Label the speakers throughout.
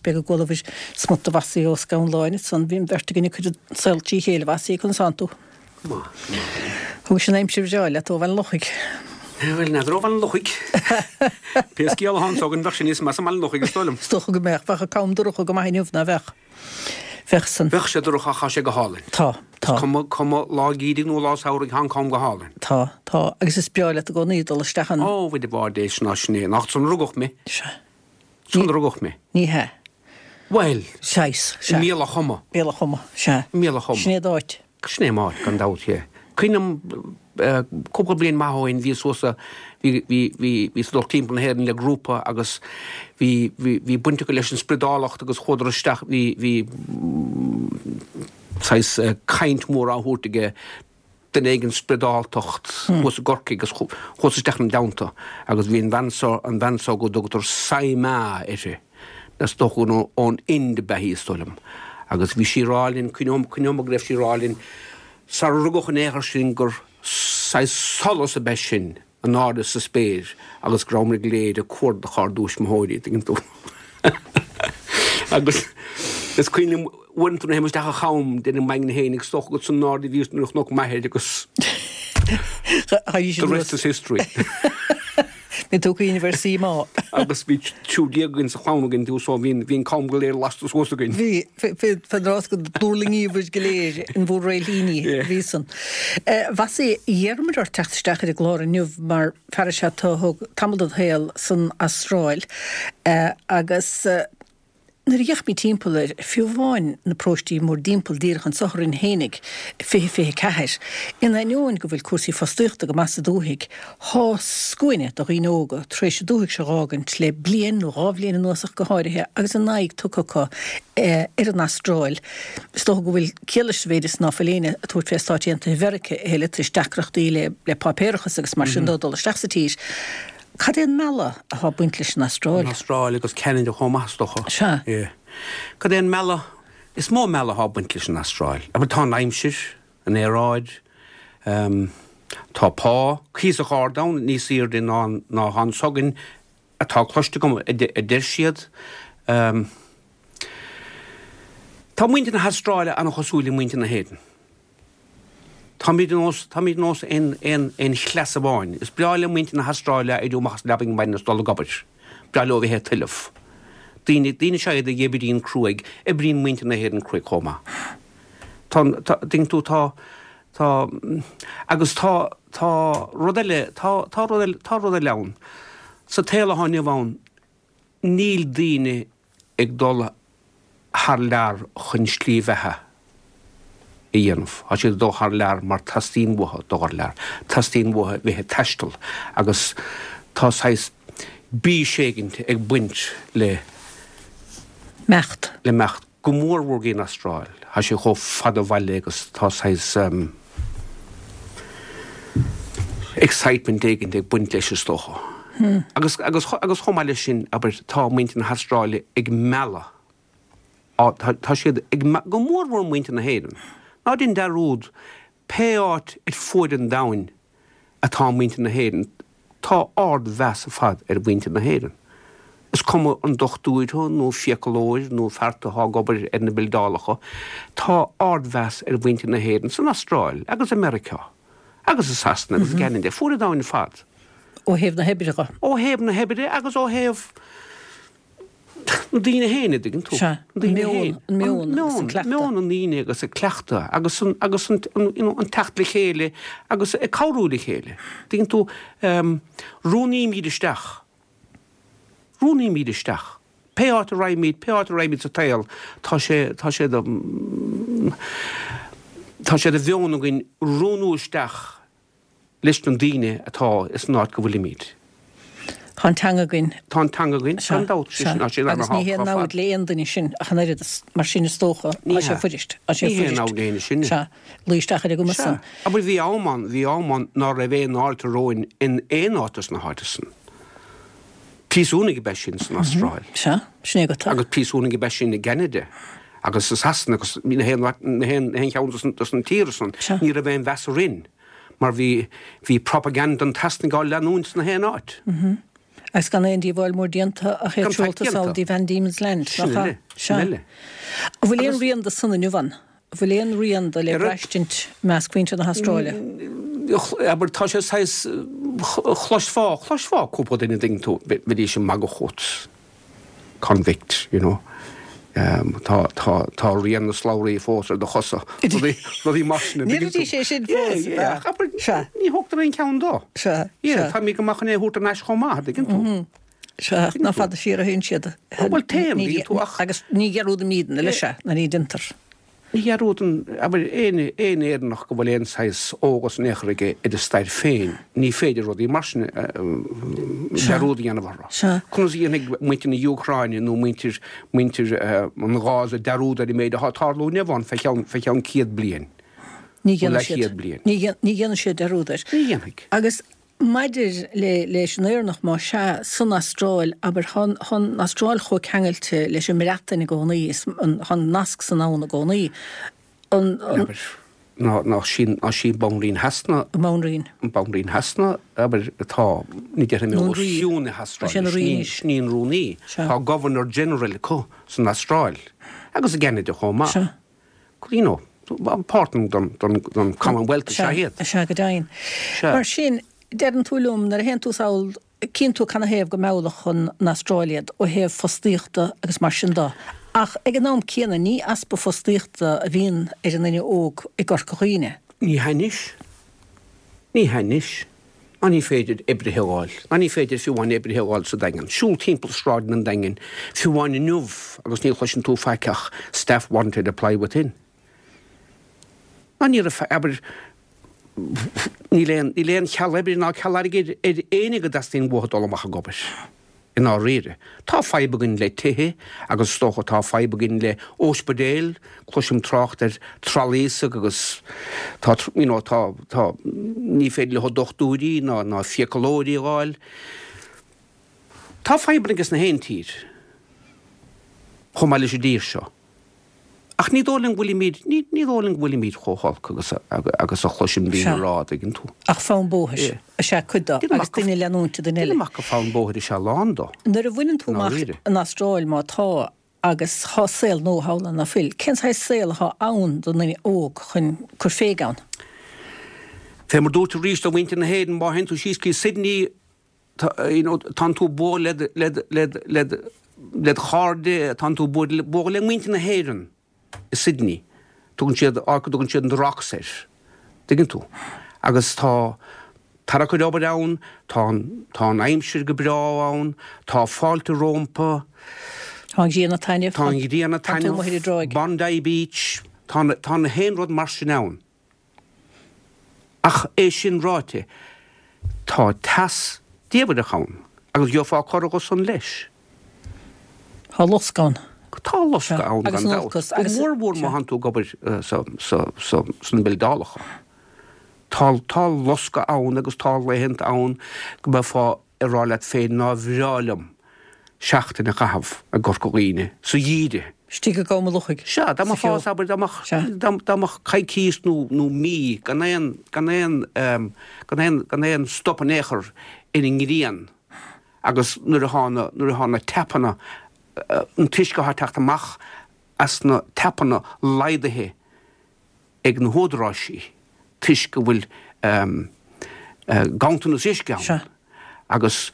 Speaker 1: B'fhéidir go gcualabhair smut de Mhossie Ó Scanláin ansan. Bhí an bheirt againn ag cur an saol trí chéile, Mhossie, conas tánn tú?
Speaker 2: Go maith, go maith.
Speaker 1: Thugais an aimsir bhreá leat ó Bhaile an Lochaigh.
Speaker 2: Bhuel, n'fheadar ó Bhaile an Lochaigh. Pé scéal atá anso againn, bheadh sé níos measa i mBaile an Lochaigh, is dóigh liom.
Speaker 1: Is dócha go mbeadh. Bheadh an cam dorcha go maith inniu, ná bheadh? Bheadh san.
Speaker 2: Bheadh sé dorcha ach tá sé go hálainn.
Speaker 1: Tá, tá.
Speaker 2: Is cuma, cuma lá geimhridh nó lá samhraidh, tá an cam go hálainn.
Speaker 1: Tá, tá. Agus is breá leat i gcónaí dul isteach ann.
Speaker 2: Ó, bhuel, de bharr Dé, sin ná sin é. Nach ansan a rugadh mé.
Speaker 1: Sea.
Speaker 2: Ansan a rugadh mé.
Speaker 1: Ní hea.
Speaker 2: Bhuel.
Speaker 1: Saghas, sea.
Speaker 2: I mBealach Choma.
Speaker 1: Bealach Choma, sea.
Speaker 2: I mBealach Choma.
Speaker 1: Sin é d'áit.
Speaker 2: Sin é m'áit, gan dabht, yeah. Cuimhním cúpla bliain maith ó shin, bhíos thuas sa, bhí, bhí, bhí, bhíos ag dul timpeall na hÉireann le grúpa agus bhí, bhí, bhí baint acu leis an spriodálacht agus chuadar isteach, bhí, bhí saghas caint mhór á thabhairt aige duine éigin spriodáltacht thuas i gCorcaigh agus chuas isteach ina dteannta agus bhí an bhean seo, an bhean seo go dtugtar Sai Ma uirthi, is dócha gur ón Ind ab ea í is dóigh liom, agus bhí sí ag rá linn, cuimhneoidh, cuimhneoidh mé go raibh sí ag rá linn sara rugadh in aon chor sinn gur saghas solas ab ea sinn in airde sa spéir agus go rabhamar go léir ag cuardach ár dtuismitheoirí, tuigeann tú. Agus is cuimhin liom uaireanta nuair a théim isteach an cham, deirim m'aigne féin, is dócha gur san airde a bhíos nuair a chonac m'athair agus the rest is history.
Speaker 1: Bhí tú ag cuimhneamh ar Sai Ma.
Speaker 2: Agus bhí 13 againn sa chlann againn tú so bhí an cam go léir lasta suas againn.
Speaker 1: Bhí, fén rás go dtuirlingíobhair go léir in bhur réiltíní, bhí san. Mhossie, d'iarramar ort teacht isteach ar an gclár inniu mar fear is ea tú a thug tamall de do shaol san Astráil agus Nuair a d'fhéachaimid timpeall air, fiú amháin na paróistí mórdtimpeall díreach anso orainn fhéinig, 20 24, in ainneoin go bhfuil cúrsaí fostaíochta go maith sa dúthaigh, thá scuaine de dhaoine óga tar éis an dúthaigh seo dh'fhágaint le bliain nó dhá bhliain anuas ach go háirithe agus a n-aghaidh tugtha acu ar an Astráil. Is dócha go bhfuil ciall leis sa mhéid is ná fuil éinne ag tabhairt fé Stáit Aontaithe Mheirice a thuilleadh toisc deacrachtaí le páipéarachas agus mar sin dó dul isteach sa tír. Cad é an mealladh atá ag baint leis an Astráil?
Speaker 2: An Astráil agus Ceanada chomh maith, is dócha.
Speaker 1: Sea.
Speaker 2: Yeah. Cad é an mealladh? Is mó mealladh atá ag baint leis an Astráil. Abair, tá an aimsir, an aeráid, tá pá cuíosach ard ann, níos airde ná ná atá anso againn, atá cloiste agam, a deir siad. Tá muintir na hAstráile an-chosúil le muintir na hÉireann. Táimid ar nós, táimid ar nós aon, aon, aon chleas amháin. Is breá le muintir na hAstráile éirí amach as an leabaidh ar maidin is dul ag obair. Breá leo a bheith ag tuilleamh. Daoine, daoine is ea iad a oibríonn cruaidh. Oibríonn muintir na hÉireann cruaidh chomh maith. Tá, tá, tuigeann tú, tá, tá, agus tá, tá rud eile, tá, tá rud eile, tá rud eile ann. Sa tsaol atá inniu ann, níl daoine ag dul thar lear chun slí bheatha a dhéanamh. Tá siad ag dul thar lear mar teastaíonn uathu dul thar lear. Teastaíonn uathu bheith ag taisteal agus tá saghas bís éigint ag baint le.
Speaker 1: Imeacht.
Speaker 2: Le imeacht. Go mór mhór go dtí an Astráil. Tá sé chomh fada ó bhaile agus tá saghas excitement éigint ag baint leis is dócha. Agus, agus, agus chomh maith leis sin, abair, tá muintir na hAstráile ag mealladh, tá, tá siad ag, go mór mhór muintir na hÉireann. Ná déan dearúd, pé áit ar fuaid an domhain atá muintir na hÉireann, tá ard-mheas ar fad ar mhuintir na hÉireann. Is cuma an dochtúir thú nó fiacalóir nó fear atá ag obair ar na bildeálacha, tá ard-mheas ar mhuintir na hÉireann san Astráil agus i Meiriceá agus i Sasana agus i gCeanada, fuaid an domhain ar fad.
Speaker 1: Ó thaobh na hoibre
Speaker 2: dhe. Ó thaobh na hoibre agus ó thaobh na daoine féin, a dtuigeann tú.
Speaker 1: Sea, an meon, an meon agus an cleachtadh.
Speaker 2: Meon na ndaoine agus an cleachtadh agus an, agus an, you know, an teacht le chéile agus ag cabhrú le chéile. Tuigeann tú, rúnaímid isteach, rúnaímid isteach. Pé áit a raghaimid, pé áit a raghaimid sa tsaol, tá sé, tá sé de, tá sé de mheon againn rúnú isteach leis na daoine atá ins an áit go bhfuilimid.
Speaker 1: Tá an teanga againn.
Speaker 2: Tá an teanga againn, gan dabht.
Speaker 1: Sea, sea. Agus ní haon namhaid le aon duine sin ach an oiread, mar sin is dócha,
Speaker 2: Ní
Speaker 1: tá sé
Speaker 2: hea.
Speaker 1: fuirist, tá sé
Speaker 2: Ní haon
Speaker 1: fuirist.
Speaker 2: namhaid le éinne sinne.
Speaker 1: Sea, luí isteach ar an gcuma
Speaker 2: Sea.
Speaker 1: san.
Speaker 2: Abair bhí am ann, bhí am ann ná raibh aon fháilte romhainn in aon áit dos na háite san. Príosúnaigh ab ea sinn san Astráil.
Speaker 1: Sea, sin é agat.
Speaker 2: Agus príosúnaigh ab ea sinn i gCeanada agus i Sasana agus na haon, na haon, na haon cheann dos, dos na tíortha san.
Speaker 1: Sea.
Speaker 2: Ní raibh aon mheas orainn. Mar bhí, bhí propaganda an tSasanaigh á leanúint sna haon áit.
Speaker 1: Agus gan aon díobháil mór déanta ach iad
Speaker 2: Gan faic
Speaker 1: seolta sall
Speaker 2: déanta.
Speaker 1: dtí Van Diemen's Land,
Speaker 2: Sin
Speaker 1: nach ea?
Speaker 2: uile, sin
Speaker 1: Sea.
Speaker 2: uile.
Speaker 1: An bhfuil aon
Speaker 2: Agus.
Speaker 1: rian de san inniu ann? An bhfuil aon rian de le
Speaker 2: Ar a.
Speaker 1: braistint i measc mhuintir na hAstráile?
Speaker 2: Abair, tá sé saghas, chloisfeá, chloisfeá cúpla duine an dtuigeann tú, bheidís ag magadh fút. Convict, you know. Tá, tá, tá rian na slabhraí fós ar do chosa. Rudaí, rudaí mar sin, an dtuigeann tú?
Speaker 1: Ní sé sin fós,
Speaker 2: Yeah, yeah, ach abair,
Speaker 1: Sea.
Speaker 2: ní thógtar aon cheann dó.
Speaker 1: Sea,
Speaker 2: Yeah,
Speaker 1: sea.
Speaker 2: tá mé go maith chun é a thabhairt thar n-ais chomh maith, an dtuigeann tú?
Speaker 1: Sea, ach nach fada siar a théann siad.
Speaker 2: Bhuel, téann, an dtuigeann tú, ach.
Speaker 1: Agus ní dhearúdaimidne, leis, sea, ná ní déantar.
Speaker 2: Ní dhearúdann, abair, aon aon Éireannach go bhfuil aon saghas eolas in aon chor aige ar a stair féin, ní féidir rudaí mar sin dearúd a dhéanamh orthu. Conas a dhéanfaidh muintir na hÚcráine nó muintir muintir an Ghaza dearúd ar an méid atá ag tarlú inniu ann fé cheann fé cheann 100 bliain
Speaker 1: Ní
Speaker 2: nó
Speaker 1: dhéanfaidh siad.
Speaker 2: leathchéad bliain?
Speaker 1: Ní dhéanfaidh siad dearúd air.
Speaker 2: Ní dhéanfaidh.
Speaker 1: Agus Maidir le leis an Éireannach, más ea, san Astráil, abair, thá an Astráil chomh ceangailte leis an mBreatain i gcónaí, is thá an nasc san ann i gcónaí. An.
Speaker 2: Abair, ná, ná sí, ná sí Banríon Shasana.
Speaker 1: An Banríon.
Speaker 2: An Banríon Shasana, abair, atá, ní déarfaidh mé
Speaker 1: Nó an
Speaker 2: os
Speaker 1: Rí.
Speaker 2: cionn na
Speaker 1: Tá sé
Speaker 2: hAstráile,
Speaker 1: ina rí
Speaker 2: sin í,
Speaker 1: anois.
Speaker 2: sin í an rúnaí.
Speaker 1: Sea.
Speaker 2: Tá Governor General acu san Astráil, agus i gCeanada chomh maith.
Speaker 1: Sea.
Speaker 2: You know, páirt den Commonwealth is ea iad.
Speaker 1: Sea, go deimhin.
Speaker 2: Sea.
Speaker 1: Mar sin, deireann tú liom, nuair a théann tú sall, cíonn tú canathaobh go meallfadh an Astráil iad ó thaobh fostaíochta agus mar sin de. Ach ag an am céanna, ní easpa fostaíochta a bhíonn ar an nduine óg i gCorca Dhuibhne.
Speaker 2: Ní hea anois. Ní hea anois. Ná ní féidir oibrithe a fháil. Ná ní féidir fiú amháin oibrithe a fháil sa Daingean. Siúl timpeall sráideanna an Daingin, fiú amháin inniu, agus ní chloiseann tú faic ach staff wanted, apply within. Ná ní raibh, abair, níl aon, níl aon cheal oibre ná ceal airgid ar éinne go dteastaíonn uathu dul amach ag obair. I ndáiríre. Tá fadhb againn le tithe agus is dócha tá fadhb againn le óispidéil, cloisim trácht ar trolleys agus tá, you know, tá, tá, ní féidir leo dochtúirí ná, ná fiacalóirí a fháil. Tá fadhbanna aige sna haon tír, chomh maith leis an dtír seo. Ach ní dóigh liom go bhfuilimid, ní, ní dóigh liom go bhfuilimid chomh holc agus a, agus a chloisim daoine
Speaker 1: Sea.
Speaker 2: a rá, an dtuigeann tú.
Speaker 1: Ach fonn bóthair
Speaker 2: Yeah.
Speaker 1: is ea cuid de,
Speaker 2: Déanaim
Speaker 1: agus
Speaker 2: amach go,
Speaker 1: duine ag leanúint duine eile.
Speaker 2: déanaim amach gur fonn bóthair is ea a lán de,
Speaker 1: Nuair a bhaineann tú
Speaker 2: i
Speaker 1: amach
Speaker 2: ndáiríre.
Speaker 1: an Astráil, má tá, agus thá saol nua thall ann, ná fuil, cén saghas saol athá ann don duine óg chun cur féig ann?
Speaker 2: Fé mar dúirt arís do mhuintir na hÉireann, má théann tú síos go Sydney, tá, you know, tánn tú ag bualadh le, le, le, le, led chairde, tánn tú ag bualadh le muintir na hÉireann i Sydney. Tugann siad, áit go dtugann siad an The Rocks air. Tuigeann tú? Agus tá tarrac ar obair ann, tá an, tá an aimsir go breá ann, tá fáilte rómpa.
Speaker 1: Tá an ghrian ag taitneamh.
Speaker 2: Tá an ghrian ag
Speaker 1: Tá tú amuigh ar an
Speaker 2: taitneamh,
Speaker 1: dtráigh.
Speaker 2: Bondi Beach, tá, tá na haon rud mar sin ann. Ach é sin ráite, tá teas diamhrach ann agus gheofá corradh dho san leis.
Speaker 1: Tá loscadh ann.
Speaker 2: Tá loscadh ann
Speaker 1: Agus
Speaker 2: gan
Speaker 1: an
Speaker 2: dabht.
Speaker 1: olcas
Speaker 2: Go
Speaker 1: agus.
Speaker 2: mór mhór má thánn tú ag obair sna bildeálacha. Tá tá loscadh ann agus tá laethanta ann go mbeifeá ag rá leat féin nár bhreá liom seachtain a chaitheamh i gCorca Dhuibhne sa gheimhreadh.
Speaker 1: Istigh i gCom an Lochaigh.
Speaker 2: Sea, dá
Speaker 1: Sa
Speaker 2: mbeifeá,
Speaker 1: cheo.
Speaker 2: abair, dá mbeadh,
Speaker 1: Sea.
Speaker 2: dá, dá mbeadh coicís nó, nó mí gan aon, gan aon, gan aon, gan aon stop in aon chor ar an ngrian agus nuair athá na, nuair athá na tapanna, an t-uisce athá ag teacht amach as na tapanna laghdaithe ag na húdaráisí toisc go bhfuil ganntanas uisce ann agus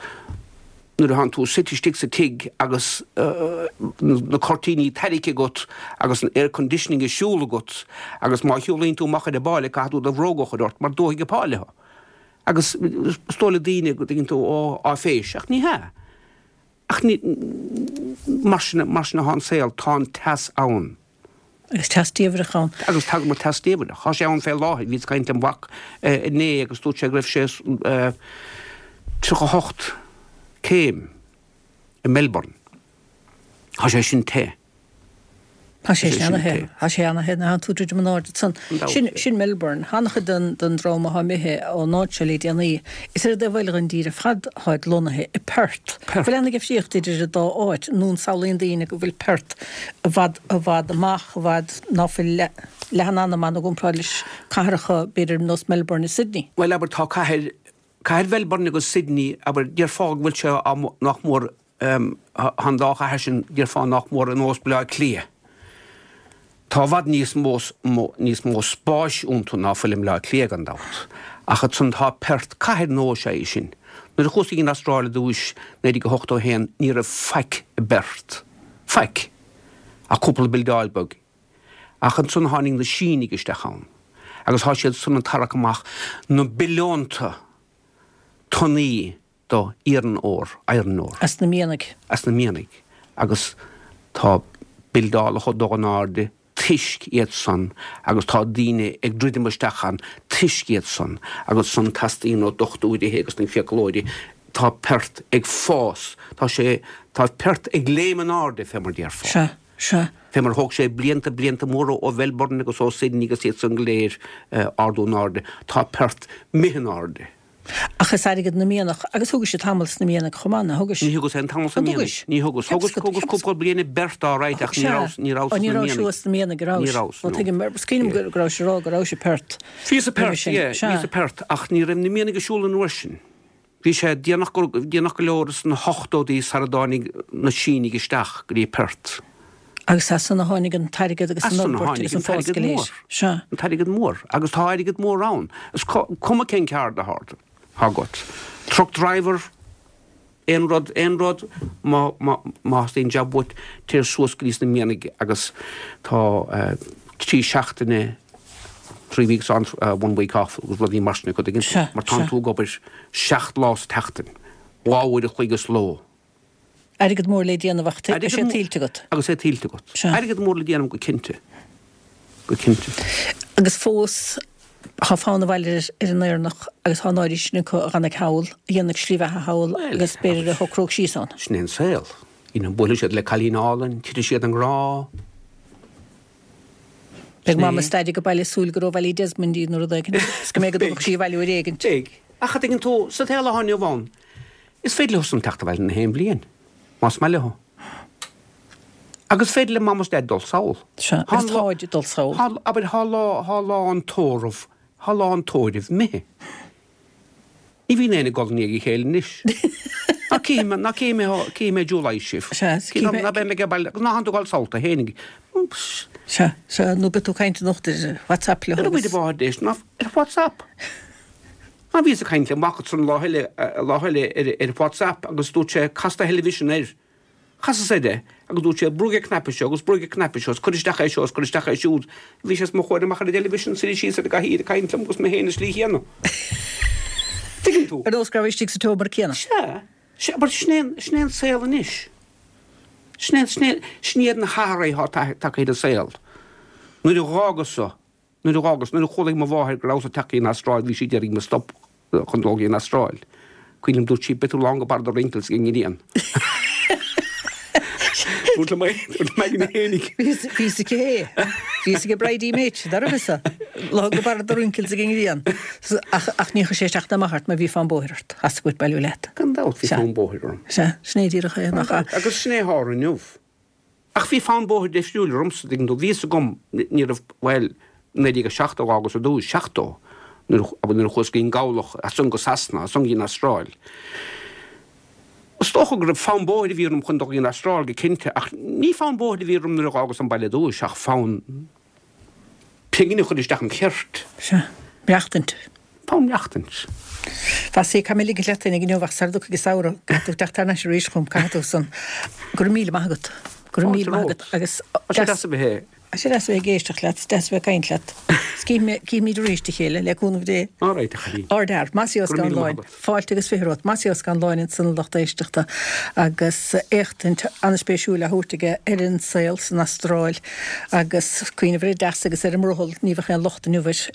Speaker 2: nuair atánn tú suite istigh sa tigh agus na cuirtíní tarraicthe agat agus an air conditioning ag siúl agat agus má shiúlaíonn tú amach ar an bpáile caithfidh tú do bhróga a chur ort mar dófaidh an pháile thú. Agus is dóigh le daoine go dtuigeann tú, ó, áiféis, ach ní hea. Ach ní, mar sin, mar sin atá an saol, tá an teas ann.
Speaker 1: Agus teas diamhrach ann.
Speaker 2: Agus tagann an teas diamhrach. Tá sé ann fé láthair. Bhíos ag caint lem mhac inné agus dúirt sé go raibh sé 38 céim i Melbourne. Tá sé sin te.
Speaker 1: Tá sé sin ana-the. Tá sé ana-the nuair atánn tú druidim in airde ansan. Sin, sin Melbourne. An-chuid den, den dream athá imithe ón áit seo le déanaí, is ar an dtaobh eile den dtír ar fad atáid lonnaithe, i Perth.
Speaker 2: Perth.
Speaker 1: Bhfuil aon difríocht idir an dá áit, nó an samhlaíonn daoine go bhfuil Perth i bhfad, i bhfad amach, i bhfad ná fuil leath, leath an anam ann i gcomparáid leis cathracha, b'fhéidir, nós Melbourne is Sydney?
Speaker 2: Bhuel, abair, tá cathair. Cathair Mhelbourne agus Sydney, abair, déarfá go bhfuil sé nach mór, tá an dá chathair sin, déarfá nach mór ar nós Baile Átha Cliath. Tá i bhfad níos mó, níos mó spáis iontu ná fuil i mBaile Átha Cliath gan dabht. Ach ansan tá Perth, cathair nua is ea í sin. Nuair a chuas go dtí an Astráil ar dtúis, 1981, ní raibh faic i bPerth. Faic. Ach cúpla bildeáil beag. Ach ansan tháinig na Sínigh isteach ann agus thá siad san ag tarrac amach na billiúnta tonnaí do iron ore, iron ore.
Speaker 1: As na mianaigh.
Speaker 2: As na mianaigh. Agus tá bildeálacha ag dul in airde toisc iad san agus tá daoine ag druidim isteach ann toisc iad san agus san teastaíonn ó dochtúirithe agus na fiaclóirí tá Perth ag fás, tá sé, tá Perth ag léim in airde fé mar déarfá.
Speaker 1: Sea. Sea.
Speaker 2: Fé mar thóg sé blianta, blianta móra ó Mhelbourne agus ó Sydney agus iad san go léir ardú in airde, tá Perth imithe in airde.
Speaker 1: Ach is airgead na mianach, agus thugais tamall sna mianaigh chomh maith, ná thugais?
Speaker 2: Ní thugas aon tamall sna
Speaker 1: An dtugais?
Speaker 2: mianaigh. Ní thugas. Thugas, thugas cúpla bliain i bPerth all right ach ní rabhas, ní rabhas
Speaker 1: sna
Speaker 2: mianaigh.
Speaker 1: Ní rabhais thuas sna mianaigh, a rabhais?
Speaker 2: Ní rabhas, no.
Speaker 1: Tuigim, mar is cuimhin liom go rabhais ag rá go rabhais i Perth.
Speaker 2: Bhíos i Perth, yeah, bhíos i Perth ach ní raibh na mianaigh ag siúl an uair sin. Bhí sé déanach go, déanach go leor sna hochtóidí sara dtáinig na Sínigh isteach go dtí Perth.
Speaker 1: Agus as san a tháinig an t-airgead agus
Speaker 2: As
Speaker 1: an
Speaker 2: san a
Speaker 1: fhorbairt
Speaker 2: tháinig
Speaker 1: agus an
Speaker 2: an
Speaker 1: fás
Speaker 2: t-airgead
Speaker 1: go léir.
Speaker 2: mór.
Speaker 1: Sea.
Speaker 2: An t-airgead mór. Agus tá airgead mór ann. Is cuma cén ceard atá agat. Truck driver, aon rud, aon rud, má, má, má theastaíonn jab uait, téir suas go dtí sna mianaigh agus tá trí seachtaine, 3 weeks on, 1 week off agus rudaí mar sin acu, tuigeann tú, mar tánn tú ag obair 7 lá sa tseachtain, 2 uair a chloig sa ló.
Speaker 1: Airgead mór le déanamh ach tá sé tuillte agat.
Speaker 2: Agus é tuillte agat. Airgead mór le déanamh go cinnte. Go cinnte.
Speaker 1: Agus fós tá fonn abhaile ar an Éireannach agus tá an oiread sin acu a dh'fhanfaidh thall, a dhéanfaidh slí bheatha thall agus b'fhéidir a shocródh síos ann.
Speaker 2: Sin é an saol. You know, buailfidh siad le cailín álainn, titfidh siad i ngrá.
Speaker 1: Beidh Mam is Daid ag baile ag súil gur ó Ballydesmond í nó rud éigin is go mbeidh go dtabharfadh sí abhaile uair éigin.
Speaker 2: Beidh. Ach a dtuigeann tú, sa tsaol atá inniu ann, is féidir leo san teacht abhaile na haon bhliain, más maith leo. Agus is féidir le Mam is Daid dul sall.
Speaker 1: Sea, agus táid ag dul sall.
Speaker 2: Thá, abair, thá lá, thá lá an tórraimh, thá lá an tórraimh imithe. Ní bhíonn éinne ag gol i ndiaidh a chéile anois. Ná cífidh mé, ná cífidh mé, cífidh mé July sibh.
Speaker 1: Sea,
Speaker 2: cífidh mé. Ná beidh mé ag baile, ná thánn tú ag dul sall tú fhéinig.
Speaker 1: Sea, sea, nó beidh tú ag caint anocht ar WhatsApp leo
Speaker 2: agus. Ar a bhfáth ná ar WhatsApp. Ná bhíos ag caint le mac ansan lá eile, lá eile ar ar WhatsApp agus dúirt sé cas do theilifísean air. Chasas air é agus dúirt sé, brúigh an cnaipe seo agus brúigh an cnaipe seo is cuir isteach é seo is cuir isteach é siúd. Bhí sé os mo chomhair amach ar an dteilifísean suite síos ar an gcathaoir ag caint liom agus mé féin i slí chéanna. Tuigeann tú?
Speaker 1: Ar nós go raibh istigh sa tseomra céanna.
Speaker 2: Sea. Sea, but sin é an, sin é an saol anois. Sin é, sin é, sin iad na hathruithe atá tagtha ar an saol. Nuair a dh'fhágas-sa Nuair a dh'fhágas, nuair a chualaigh mo mháthair go rabhas ag teacht go dtí an Astráil, bhí sí d'iarraidh mo stop chun dul go dtí an Astráil. Cuimhin liom, dúirt sí, beidh tú lán go barr do wrinkles ag an ngrian. Dúirt liom é, dúirt liom aigne fhéinig.
Speaker 1: Bhí fhios aici é. Bhí fhios ag Bridie Mate, dá raibh fhios Lán go barr do wrinkles ag an ngrian. Ach, ach ní chuir sé isteach ná amach ort mar bhí fonn bóthair ort. Theastaigh uait bailiú leat.
Speaker 2: Gan dabht bhí fonn bóthair orm.
Speaker 1: Sea, sin é díreach é, nach ea?
Speaker 2: Agus sin é atá inniu. Ach bhí fonn bóthair difriúil ormsa, tuigeann tú. Bhí fhios agam, ní raibh, bhuel, 1970 dh'fhágas ar dtús, 70, nuair a, nuair a chuas go dtí an gCabhlach, as san go Sasana, as san go dtí an Astráil. Is dócha go raibh fonn bóthair a bhí orm chun dul go dtí an Astráil go cinnte, ach ní fonn bóthair a bhí orm nuair a dh'fhágas an baile ar dtús, ach fonn pingin a chur isteach im cheirt.
Speaker 1: Sea. Maireachtaint.
Speaker 2: Fonn maireachtaint.
Speaker 1: Bhasaí, caithfidh mé ligint leat féinig inniu ach sara dtiocfaidh an samhradh, caithfidh tú teacht thar n-ais arís chugam, caithfidh tú san. Go raibh míle maith agat. Go raibh míle maith agat agus.
Speaker 2: Tá sé deas a bheith.
Speaker 1: Tá sé deas a bheith ag éisteacht leat, is deas a bheith ag caint leat. Is cífimid arís a chéile, le cúnamh Dé.
Speaker 2: All right, a chailín.
Speaker 1: Ardfhear. Mossie Ó Scanláin. Fáilte agus 20 romhat. Mossie Ó Scanláin ansan a lucht éisteachta agus éachtaint an-spéisiúil á thabhairt aige ar an saol san Astráil agus cuimhneamh ar an dteas agus ar an mbrothall, ní bheadh aon locht inniu air.